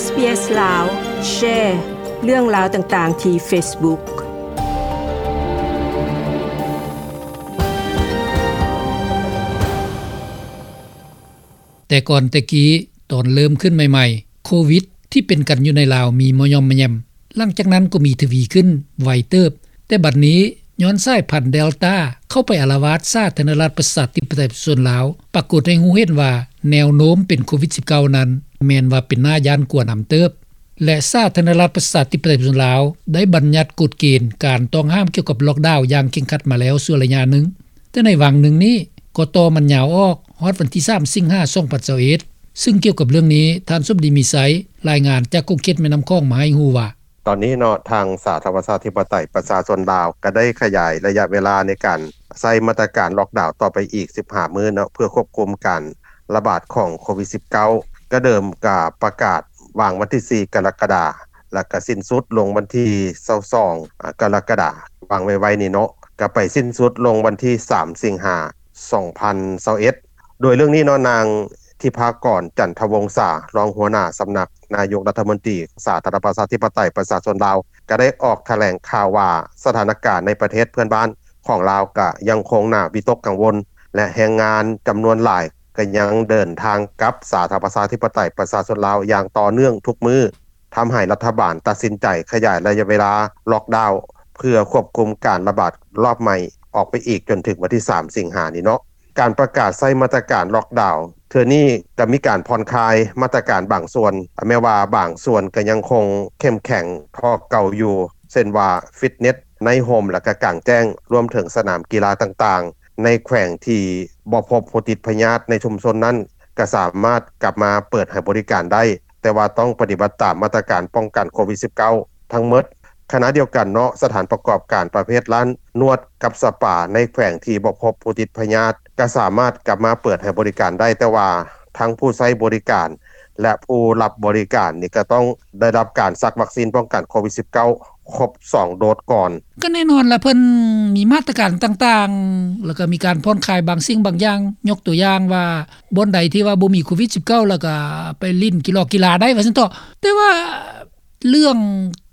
ເອສບີເອສ ລາວ ແຊເລື່ອງລາວຕ່າງໆທີ່ເຟສບຸກ. ແຕ່ກ່ອນແຕ່ກີ້ ຕອນເລີ່ມຂຶ້ນໃໝ່ໆ ໂຄວິດທີ່ເປັນກັນຢູ່ໃນລາວມີມາຍ່ອມມາແຍ່ມ, ຫຼັງຈາກນັ້ນກໍມີທະວີຂຶ້ນໄວເຕີບ, ແຕ່ບັດນີ້ຍ້ອນສາຍພັນເດລຕາເຂົ້າໄປອາລະວາດສາທາລະນະລັດປະຊາທິປະໄຕປະຊາຊົນລາວ, ປາກົດໃຫ້ຮູ້ເຫັນວ່າແນວໂນ້ມເປັນໂຄວິດສິບເກົ້ານັ້ນ ແມ່ນວ່າເປັນໜ້າຢ້ານກົວນຳເຕີບ ແລະ ສາທາລະນະລັດປະຊາທິປະໄຕປະຊາຊົນລາວໄດ້ບັນຍັດກົດເກນການຕ້ອງຫ້າມກ່ຽວກັບລັອກດາວຢ່າງເຄັ່ງຄັດມາແລ້ວຊົ່ວໄລຍະໜຶ່ງ. ແຕ່ໃນຫວ່າງໜຶ່ງນີ້ກໍຕໍ່ມັນຍາວອອກຮອດວັນທີສາມ ສິງຫາ ສອງພັນຊາວເອັດ ຊຶ່ງກ່ຽວກັບເລື່ອງນີ້ ທ່ານສົມດີ ມີໄຊ ລາຍງານຈາກຂົງເຂດແມ່ນ້ຳຂອງມາໃຫ້ຮູ້ວ່າ ຕອນນີ້ເນາະ ທາງສາທາລະນະລັດປະຊາທິປະໄຕປະຊາຊົນລາວ ກໍໄດ້ຂະຫຍາຍໄລຍະເວລາໃນການໃຊ້ມາດຕະການລັອກດາວຕໍ່ໄປອີກສິບຫ້າມື້ເນາະ ເພື່ອຄວບຄຸມການລະບາດຂອງໂຄວິດສິບເກົ້າ. ກໍເດີມກໍປະກາດວາງວັນທີສີ່ ກໍລະກະດາ ແລ້ວກໍສິ້ນສຸດລົງວັນທີຊາວສອງ ອາ ກໍລະກະດາ ວາງໄວ້ໆນີ້ເນາະ ກໍໄປສິ້ນສຸດລົງວັນທີສາມ ສິງຫາ ສອງພັນຊາວເອັດ. ໂດຍເລື່ອງນີ້ເນາະ ນາງທິພາກອນ ຈັນທະວົງສາ ຮອງຫົວໜ້າສຳນັກນາຍົກລັດຖະມົນຕີ ສາທາລະນະລັດປະຊາທິປະໄຕປະຊາຊົນລາວ ກໍໄດ້ອອກຖະແຫຼງຂ່າວວ່າ ສະຖານະການໃນປະເທດເພື່ອນບ້ານຂອງລາວກໍຍັງຄົງໜ້າວິຕົກກັງວົນ ແລະ ແຮງງານຈຳນວນຫຼາຍກໍຍັງເດີນທາງກັບສາທາລະນະລັດປະຊາທິປະໄຕປະຊາຊົນລາວຢ່າງຕໍ່ເນື່ອງທຸກມື້. ທຳໃຫ້ລັດຖະບານຕັດສິນໃຈຂະຫຍາຍໄລຍະເວລາລັອກດາວ ເພື່ອຄວບຄຸມການລະບາດລອບໃໝ່ອອກໄປອີກຈົນເຖິງວັນທີສາມ ສິງຫານີ້ເນາະ. ການປະກາດໃຊ້ມາດຕະການລັອກດາວເທື່ອນີ້ ກໍມີການຜ່ອນຄາຍມາດຕະການບາງສ່ວນ, ແມ້ວ່າບາງສ່ວນກໍຍັງຄົງເຂັ້ມແຂງເທົ່າເກົ່າຢູ່, ເຊັ່ນວ່າ ຟິດເນັດ, ໃນຮົ່ມ ແລະ ກະກາງແຈ້ງ, ລວມເຖິງສະໜາມກິລາຕ່າງໆ ໃນແຂວງທີ່ບໍ່ພົບຜູ້ຕິດພະຍາດໃນຊຸມຊົນນັ້ນ ກໍສາມາດກັບມາເປີດໃຫ້ບໍລິການໄດ້. ແຕ່ວ່າຕ້ອງປະຕິບັດຕາມມາດຕະການປ້ອງກັນໂຄວິດສິບເກົ້າທັງໝົດ. ຂະນະດຽວກັນເນາະ, ສະຖານປະກອບການປະເພດຮ້ານນວດກັບສະປາໃນແຂວງທີ່ບໍ່ພົບຜູ້ຕິດພະຍາດ ກໍສາມາດກັບມາເປີດໃຫ້ບໍລິການໄດ້, ແຕ່ວ່າທັງຜູ້ໃຊ້ບໍລິການ ແລະ ຜູ້ຮັບບໍລິການນີ້ ກໍຕ້ອງໄດ້ຮັບການສັກວັກຊີນປ້ອງກັນໂຄວິດສິບເກົ້າຄົບສອງໂດສກ່ອນ. ກໍແນ່ນອນລະ ເພິ່ນມີມາດຕະການຕ່າງໆ ແລ້ວກໍມີການຜ່ອນຄາຍບາງສິ່ງບາງຢ່າງ, ຍົກຕົວຢ່າງວ່າ ບ່ອນໃດທີ່ວ່າບໍ່ມີໂຄວິດສິບເກົ້າ ແລ້ວກໍໄປຫຼິ້ນກິລອກກິລາໄດ້ວ່າຊັ້ນເຖາະ. ແຕ່ວ່າເລື່ອງ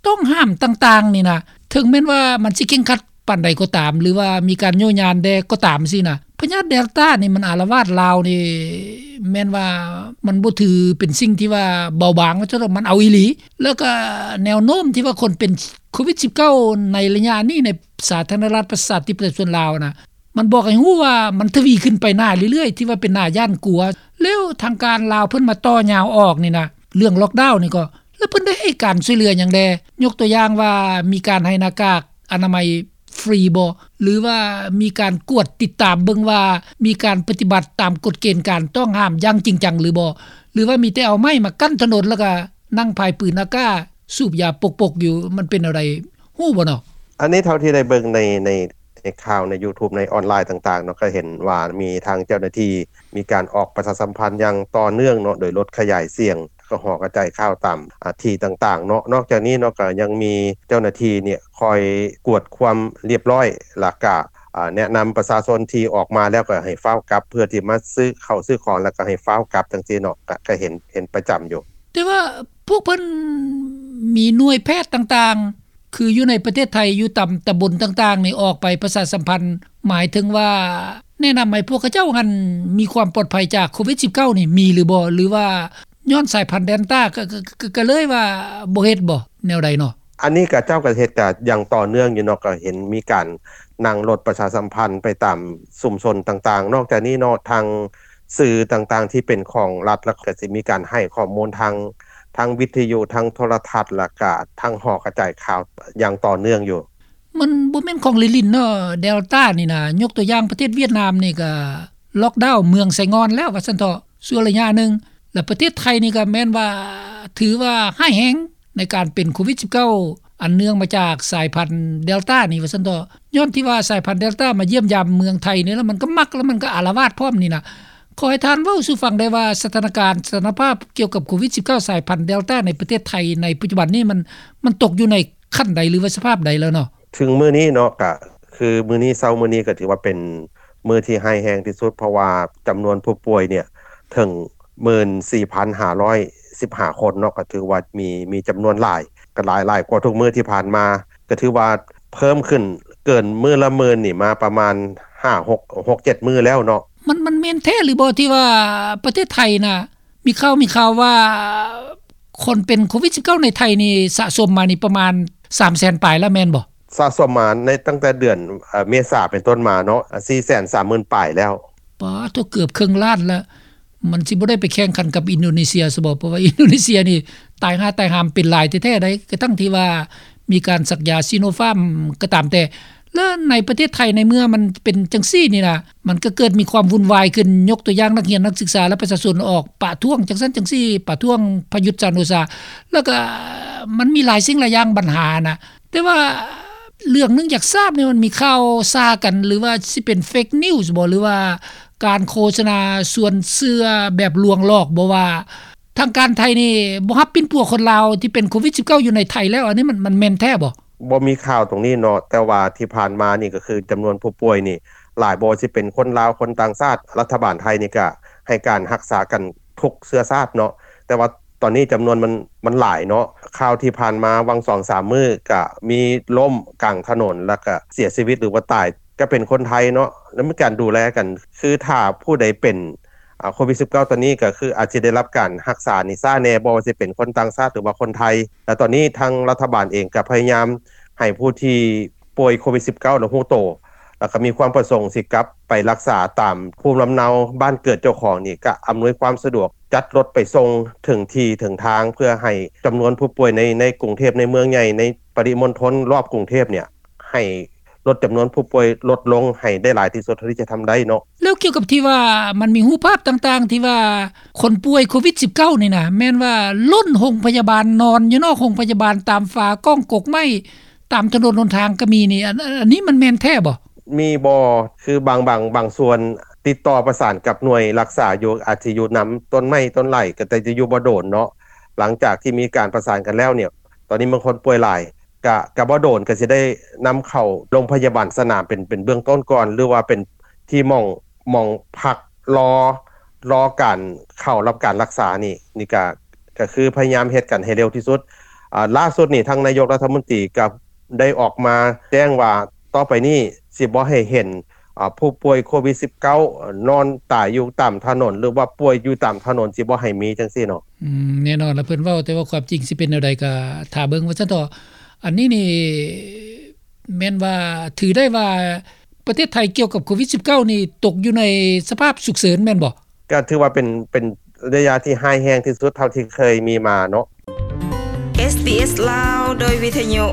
ຕ້ອງຫ້າມຕ່າງໆນີ້ນະ ເຖິງແມ່ນວ່າມັນຊິເຄັ່ງຄັດປານໃດກໍຕາມ ຫຼືວ່າມີການໂຍຍານແດ່ກໍຕາມຊີ້ນະ, ພະຍາດເດລຕານີ້ມັນອາລະວາດລາວນີ້ ແມ່ນວ່າມັນບໍ່ຖືເປັນສິ່ງທີ່ວ່າເບົາບາງວ່າຊັ້ນເຖາະ, ມັນເອົາອີ່ຫຼີ. ແລ້ວກໍແນວໂນ້ມທີ່ວ່າຄົນເປັນໂຄວິດສິບເກົ້າໃນໄລຍະນີ້ໃນສາທາລະນະລັດປະຊາທິປະໄຕປະຊາຊົນລາວນະ ມັນບອກໃຫ້ຮູ້ວ່າມັນທະວີຂຶ້ນໄປໜ້າເລື້ອຍໆ ທີ່ວ່າເປັນໜ້າຢ້ານກົວ. ແລ້ວທາງການລາວເພິ່ນມາຕໍ່ຍາວອອກນີ້ນະ ເລື່ອງລັອກດາວນີ້ກໍ ແລ້ວເພິ່ນໄດ້ໃຫ້ການຊ່ວຍເຫຼືອຫຍັງແດ່? ຍົກຕົວຢ່າງວ່າມີການໃຫ້ໜ້າກາກອະນາໄມຟຣີບໍ່? ຫຼືວ່າມີການກວດຕິດຕາມເບິ່ງວ່າມີການປະຕິບັດຕາມກົດເກນການຕ້ອງຫ້າມຢ່າງຈິງຈັງຫຼືບໍ່? ຫຼືວ່າມີແຕ່ເອົາໄມ້ມາກັ້ນຖະໜົນ ແລ້ວກໍນັ່ງພາຍປືນອາກາ ສູບຢາປົກໆຢູ່ ມັນເປັນແນວໃດ? ຮູ້ບໍ່ເນາະ? ອັນນີ້ເທົ່າທີ່ໄດ້ເບິ່ງໃນ ໃນ ໃນຂ່າວໃນຢູທູບ ໃນອອນລາຍຕ່າງໆເນາະ ກໍເຫັນວ່າມີທາງເຈົ້າໜ້າທີ່ມີການອອກປະຊາສຳພັນຢ່າງຕໍ່ເນື່ອງເນາະ ໂດຍລົດຂະຫຍາຍສຽງ ແລ້ວກໍຫໍກະຈາຍຂ່າວຕາມ ອາ ທີ່ຕ່າງໆເນາະ. ນອກຈາກນີ້ເນາະ ກໍຍັງມີເຈົ້າໜ້າທີ່ນີ້ຄອຍກວດຄວາມລຽບຮ້ອຍ ແລ້ວກະ ອາ ແນະນຳປະຊາຊົນທີ່ອອກມາແລ້ວກໍໃຫ້ຟ້າວກັບ ເພື່ອທີ່ມາຊື້ເຂົ້າຊື້ຂອງ ແລ້ວກໍໃຫ້ຟ້າວກັບ ຈັ່ງຊີ້ເນາະ ກະ ກະເຫັນ ເຫັນປະຈຳຢູ່. ແຕ່ວ່າພວກເພິ່ນມີໜ່ວຍແພດຕ່າງໆ ຄືຢູ່ໃນປະເທດໄທ ຢູ່ຕາມຕຳບົນຕ່າງໆນີ້ ອອກໄປປະຊາສຳພັນ ໝາຍເຖິງວ່າແນະນຳໃຫ້ພວກເຂົາເຈົ້າຫັ້ນມີຄວາມປອດໄພຈາກໂຄວິດສິບເກົ້ານີ້ ມີຫຼືບໍ່? ຫຼືວ່າຍ້ອນສາຍພັນເດລຕາ ກະ ກະ ກະ ກະເລີຍວ່າບໍ່ເຮັດບໍ່? ແນວໃດເນາະ? ອັນນີ້ກະເຈົ້າກະເຮັດກະຢ່າງຕໍ່ເນື່ອງຢູ່ເນາະ, ກະເຫັນມີການນັ່ງລົດປະຊາສຳພັນໄປຕາມຊຸມຊົນຕ່າງໆ. ນອກຈາກນີ້ເນາະ ທາງ ສື່ຕ່າງໆທີ່ເປັນຂອງລັດ ແລ້ວກໍຊິມີການໃຫ້ຂໍ້ມູນທາງ ທາງວິທະຍຸ ທາງໂທລະທັດ ແລ້ວກະທາງຫໍກະຈາຍຂ່າວຢ່າງຕໍ່ເນື່ອງຢູ່. ມັນບໍ່ແມ່ນຂອງຫຼິ້ນໆເນາະ ເດລຕານີ້ນະ. ຍົກຕົວຢ່າງປະເທດຫວຽດນາມນີ້ກະລັອກດາວເມືອງໄຊງ່ອນແລ້ວວ່າຊັ້ນເຖາະ ຊົ່ວໄລຍະໜຶ່ງ. ແລ້ວປະເທດໄທນີ້ກະແມ່ນວ່າຖືວ່າຮ້າຍແຮງ ໃນການເປັນໂຄວິດສິບເກົ້າ ອັນເນື່ອງມາຈາກສາຍພັນເດລຕານີ້ວ່າຊັ້ນເຖາະ. ຍ້ອນທີ່ວ່າສາຍພັນເດລຕາມາຢ້ຽມຢາມເມືອງໄທນີ້ ແລ້ວມັນກໍມັກ ແລ້ວມັນກໍອາລະວາດພ້ອມນີ້ນະ. ຂໍໃຫ້ທ່ານເວົ້າສູ່ຟັງໄດ້ວ່າ ສະຖານະການ ສະຖານະພາບກ່ຽວກັບໂຄວິດສິບເກົ້າ ສາຍພັນເດລຕາໃນປະເທດໄທໃນປັດຈຸບັນນີ້ ມັນ ມັນຕົກຢູ່ໃນຂັ້ນໃດ ຫຼືວ່າສະພາບໃດແລ້ວເນາະ? ເຖິງມື້ນີ້ເນາະ ກະຄືມື້ນີ້ ເຊົ້າມື້ນີ້ກໍຖືວ່າເປັນມື້ທີ່ຮ້າຍແຮງທີ່ສຸດ ເພາະວ່າຈຳນວນຜູ້ປ່ວຍນີ້ເຖິງ ໝື່ນສີ່ພັນຫ້າຮ້ອຍ ສິບຫ້າຄົນເນາະ ກໍຖືວ່າມີ ມີຈຳນວນຫຼາຍ ກໍຫຼາຍ ຫຼາຍກວ່າທຸກມື້ທີ່ຜ່ານມາ ກໍຖືວ່າເພີ່ມຂຶ້ນເກີນມື້ລະໝື່ນນີ້ມາປະມານຫ້າ ຫົກ ຫົກ ເຈັດມື້ແລ້ວເນາະ. ມັນ ມັນແມ່ນແທ້ຫຼືບໍ່ທີ່ວ່າປະເທດໄທນະ ມີຂ່າວ ມີຂ່າວວ່າຄົນເປັນໂຄວິດສິບເກົ້າໃນໄທນີ້ສະສົມມານີ້ປະມານສາມແສນປາຍແລ້ວແມ່ນບໍ່? ສະສົມມາໃນຕັ້ງແຕ່ເດືອນ ເອີ ເມສາເປັນຕົ້ນມາເນາະ ສີ່ແສນສາມໝື່ນປາຍແລ້ວ. ປາດໂທ້ ເກືອບເຄິ່ງລ້ານລະ. ມັນຊິບໍ່ໄດ້ໄປແຂ່ງຂັນກັບອິນໂດເນເຊຍຊະບໍ? ເພາະວ່າອິນໂດເນເຊຍນີ້ຕາຍຫາຕາຍຫາມເປັນຫຼາຍແທ້ໆໃດ໋ ກະທັ່ງທີ່ວ່າມີການສັກຢາຊີໂນຟາມກໍຕາມແຕ່. ແລະໃນປະເທດໄທໃນເມື່ອມັນເປັນຈັ່ງຊີ້ນີ້ນະ ມັນກໍເກີດມີຄວາມວຸ່ນວາຍຂຶ້ນ ຍົກຕົວຢ່າງນັກຮຽນນັກສຶກສາ ແລະ ປະຊາຊົນອອກປະທ້ວງຈັ່ງຊັ້ນຈັ່ງຊີ້ ປະທ້ວງປະຍຸດ ຈັນໂອຊາ ແລ້ວກໍມັນມີຫຼາຍສິ່ງຫຼາຍຢ່າງບັນຫານະ. ແຕ່ວ່າເລື່ອງໜຶ່ງຢາກຊາບນີ້ ມັນມີຂ່າວຊ່າກັນ ຫຼືວ່າຊິເປັນເຟກນິວສ໌ບໍ ຫຼືວ່າການໂຄສະນາຊວນເຊື່ອແບບລວງຫຼອກບໍ ວ່າທາງການໄທນີ້ບໍ່ຮັບປິ່ນປົວຄົນລາວທີ່ເປັນໂຄວິດສິບເກົ້າຢູ່ໃນໄທແລ້ວ ອັນນີ້ມັນ ມັນແມ່ນແທ້ບໍ? ບໍ່ມີຂ່າວຕົງນີ້ເນາະ ແຕ່ວ່າທີ່ຜ່ານມານີ້ກໍຄືຈຳນວນຜູ້ປ່ວຍນີ້ຫຼາຍ ບໍ່ວ່າຊິເປັນຄົນລາວ ຄົນຕ່າງຊາດ ລັດຖະບານໄທນີ້ກໍໃຫ້ການຮັກສາກັນທຸກເຊື້ອຊາດເນາະ ແຕ່ວ່າຕອນນີ້ຈຳນວນມັນ ມັນຫຼາຍເນາະ. ຂ່າວທີ່ຜ່ານມາຫວ່າງສອງສາມມື້ກໍມີລົ້ມກາງຖະໜົນ ແລ້ວກໍເສຍຊີວິດ ຫຼືວ່າຕາຍ ກໍເປັນຄົນໄທເນາະ ແລ້ວມີການດູແລກັນ. ຄືຖ້າຜູ້ໃດເປັນ ອາ ໂຄວິດສິບເກົ້າຕອນນີ້ ກໍຄືອາດຊິໄດ້ຮັບການຮັກສານີ້ຊ້າແດ່ ບໍ່ວ່າຊິເປັນຄົນຕ່າງຊາດ ຫຼືວ່າຄົນໄທ. ແລະຕອນນີ້ທາງລັດຖະບານເອງກໍພະຍາຍາມໃຫ້ຜູ້ທີ່ປ່ວຍໂຄວິດສິບເກົ້າແລ້ວຮູ້ໂຕ ແລ້ວກໍມີຄວາມປະສົງຊິກັບໄປຮັກສາຕາມພູມລຳເນົາບ້ານເກີດເຈົ້າຂອງນີ້ ກໍອຳນວຍຄວາມສະດວກ ຈັດລົດໄປສົ່ງເຖິງທີ່ເຖິງທາງ ເພື່ອໃຫ້ຈຳນວນຜູ້ປ່ວຍໃນ ໃນກຸງເທບ ໃນເມືອງໃຫຍ່ ໃນປະລິມົນທົນລອບກຸງເທບນີ້ ໃຫ້ ລົດຈຳນວນຜູ້ປ່ວຍລົດລົງໃຫ້ໄດ້ຫຼາຍທີ່ສຸດເທົ່າທີ່ຈະທຳໄດ້ເນາະ. ແລ້ວກ່ຽວກັບທີ່ວ່າມັນມີຮູບພາບຕ່າງໆ ທີ່ວ່າຄົນປ່ວຍໂຄວິດສິບເກົ້ານີ້ນະ ແມ່ນວ່າລົ້ນໂຮງພະຍາບານ ນອນຢູ່ນອກໂຮງພະຍາບານ ຕາມຝາກ້ອງກົກໄມ້ ຕາມຖະໜົນຫົນທາງກໍມີນີ້ ອັນ ອັນ ອັນນີ້ມັນແມ່ນແທ້ບໍ່? ມີບໍ່? ຄືບາງ ບາງ ບາງສ່ວນຕິດຕໍ່ປະສານກັບໜ່ວຍຮັກສາຢູ່ ອາດຊິຢູ່ນຳຕົ້ນໄມ້ຕົ້ນໄຫຼ ກໍແຕ່ຈະຢູ່ບໍ່ດົນເນາະ. ຫຼັງຈາກທີ່ມີການປະສານກັນແລ້ວນີ້ ຕອນນີ້ບາງຄົນປ່ວຍຫຼາຍ ກະ ກະບໍ່ໂດນ ກະຊິໄດ້ນຳເຂົ້າໂຮງພະຍາບານສະໜາມເປັນ ເປັນເບື້ອງຕົ້ນກ່ອນ ຫຼືວ່າເປັນທີ່ໝ່ອງ ໝ່ອງພັກລໍ ລໍການເຂົ້າຮັບການຮັກສານີ້ ນີ້ກະ ກະຄືພະຍາຍາມເຮັດກັນໃຫ້ເລັວທີ່ສຸດ. ອາ ລ່າສຸດນີ້ ທາງນາຍົກລັດຖະມົນຕີກະໄດ້ອອກມາແຈ້ງວ່າ ຕໍ່ໄປນີ້ຊິບໍ່ໃຫ້ເຫັນ ອາ ຜູ້ປ່ວຍໂຄວິດສິບເກົ້ານອນຕາຍຢູ່ຕາມຖະໜົນ ຫຼືວ່າປ່ວຍຢູ່ຕາມຖະໜົນ ຊິບໍ່ໃຫ້ມີຈັ່ງຊີ້ເນາະ. ອືມ ແນ່ນອນລະ ເພິ່ນເວົ້າ ແຕ່ວ່າຄວາມຈິງຊິເປັນແນວໃດກໍຖ້າເບິ່ງວ່າຊັ້ນເຖາະ. ອັນນີ້ນີ້ແມ່ນວ່າຖືໄດ້ວ່າປະເທດໄທກ່ຽວກັບໂຄວິດສິບເກົ້ານີ້ຕົກຢູ່ໃນສະພາບສຸກເສີນແມ່ນບໍ່? ກໍຖືວ່າເປັນ ເປັນໄລຍະທີ່ຮ້າຍແຮງທີ່ສຸດເທົ່າທີ່ເຄີຍມີມາເນາະ. ເອສບີເອສ ລາວ ໂດຍວິທະຍຸ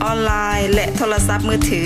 ອອນລາຍ ແລະ ໂທລະສັບມືຖື.